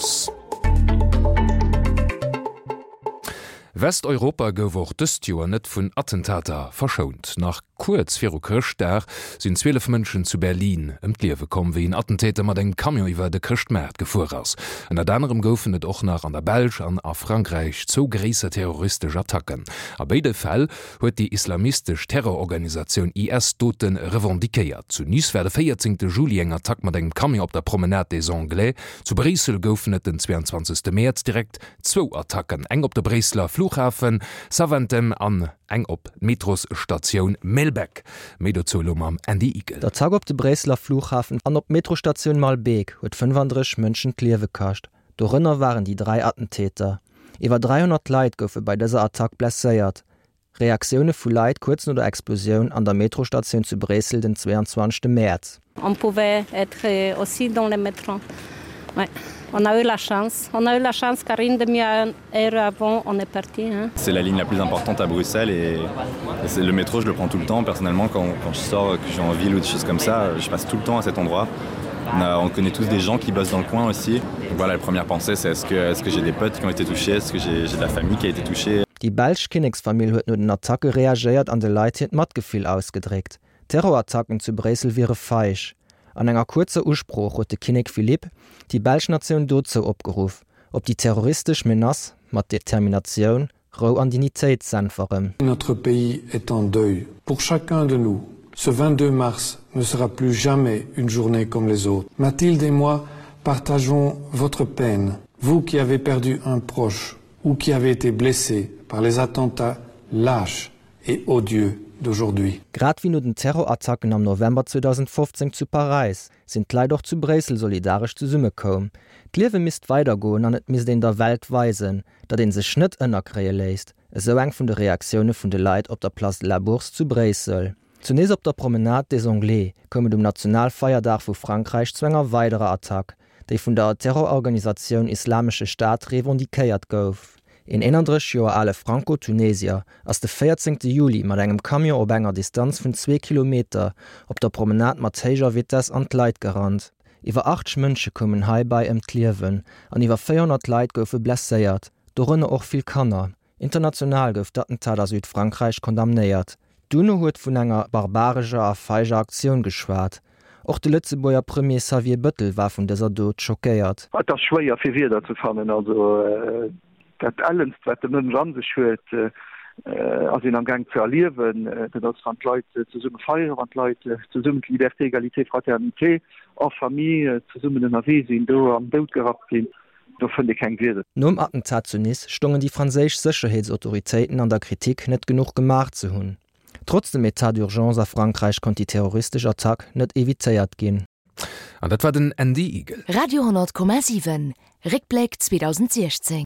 Gelooss. Westeuropa gouf och dëst Joer net vun Attentater verschount. Nach kuerz viru Chrëschtdag sinn 12 Mënschen zu Berlin ëm d'Liewe komm, wéi en Attentäter mat engem Camion iwwer de Chrëschtmaart gefuer ass. Ënnert anerem goufen et och nach an der Belsch an a Frankräich zwou gréisser terroristesch Attacken. A béide Fäll huet déi islamistesch Terrororganisatioun IS d'Dote revendiquéiert. Zu Nice war de 14 Juli eng Attack mat engem Camion op der Promenade des Anglais. Zu Bréissel goufen et den 22 Mäerz direkt zwou Attacken, eng op de Bréisseler Flughafen Zaventem an eng op d'Metrosstatioun Maelbeek. Méi dozou elo mam Andy Igel. D'Attack op de Bréisseler Flughafen an op d'Metrostatioun Maelbeek huet 35 Mënschen d'Liewe kascht. Dorënner waren déi 3 Attentäter. Iwwer 300 Leit goufe bei dëser Attack blesséiert. Reaktioune vu Leit kuerz no der Explosioun an der Metrostatioun zu Bréissel den 22 Mäerz. On pouvait être aussi dans le métro. Ouais, on a eu la chance. On a eu la chance car une demi-heure avant, on est parti. Hein. C'est la ligne la plus importante à Bruxelles et, et le métro, je le prends tout le temps. Personnellement, quand, quand je sors, que je suis en ville ou des choses comme ça, je passe tout le temps à cet endroit. On, a, on connaît tous des gens qui bossent dans le coin aussi. Donc voilà, la première pensée, c'est est-ce que, est -ce que j'ai des potes qui ont été touchés Est-ce que j'ai de la famille qui a été touchée Déi belsch Kinneksfamill huet no den Attacke reagéiert an de Leit hiert Matgefill ausgedréckt. D'Terrorattacken zu Bréissel wiere feig. An enger kuerzer Usprooch huet de Kinnek Philippe déi belsch Natioun dozou opgeruff, op déi terroristesch Menace mat Determinatioun, Rou an Dignitéit z'äntweren. Notre pays est en deuil. Pour chacun de nous, ce 22 mars ne sera plus jamais une journée comme les autres. Mathilde et moi partageons votre peine, vous qui avez perdu un proche ou qui avez été blessé par les attentats lâches et odieux d'aujourd'hui. Grad wéi no den Terrorattacken am November 2015 zu Paräis, sinn d'Leit och zu Bréissel solidaresch zesummekoum. D'Liewe misst weidergoen an et misst een der Welt weisen, datt ee sech net ënnerkréie léisst, esou eng vun de Reaktioune vun de Leit op der Place de la Bourse zu Bréissel. Zu Nice op der Promenade des Anglais koum et um Nationalfeierdag vu Frankräich zu enger weiderer Attack, déi vun der Terrororganisatioun Islamesche Staat revendiquéiert gouf. Een 31 Joer ale Franco-Tunesier ass de 14 Juli mat engem Camion op enger Distanz vun zwee Kilometer op der Promenade mat héijer Vitess an d'Leit gerannt. Iwwer 80 Mënsche koumen heibäi ëm d'Liewen an iwwer 400 Leit goufe blesséiert, dorënner och vill Kanner. International gouf d'Attentat a Südfrankräich condamnéiert. D'UNO huet vun enger barbarescher a feiger Aktioun geschwat. Och de Lëtzebuerger Premier Xavier Bëttel war vun dëser Dot schockéiert. Et ass schwéier fir Wierder ze fannen. Also dat Ellenst wat de Mënsch an sech huet, ass een am Gaang ze erliewen. Dat ass wann d'Leit zesumme feieren, wann d'Leit zesummen d'Liberté, Egalité, Fraternité en famille zesummen ënnerwee sinn, do an den Doud gerappt ginn. Do fënnt ee keng Wierder. Nom Attentat zu Nice stongen déi franséisch Sécherheetsautoritéiten an der Kritik, net genuch gemaach ze hunn. Trotz dem Etat d'urgence a Frankräich konnt déi terroristesch Attack net evitéiert ginn. An dat war den Andy Igel. Radio 10,7 Réckbléck 2016.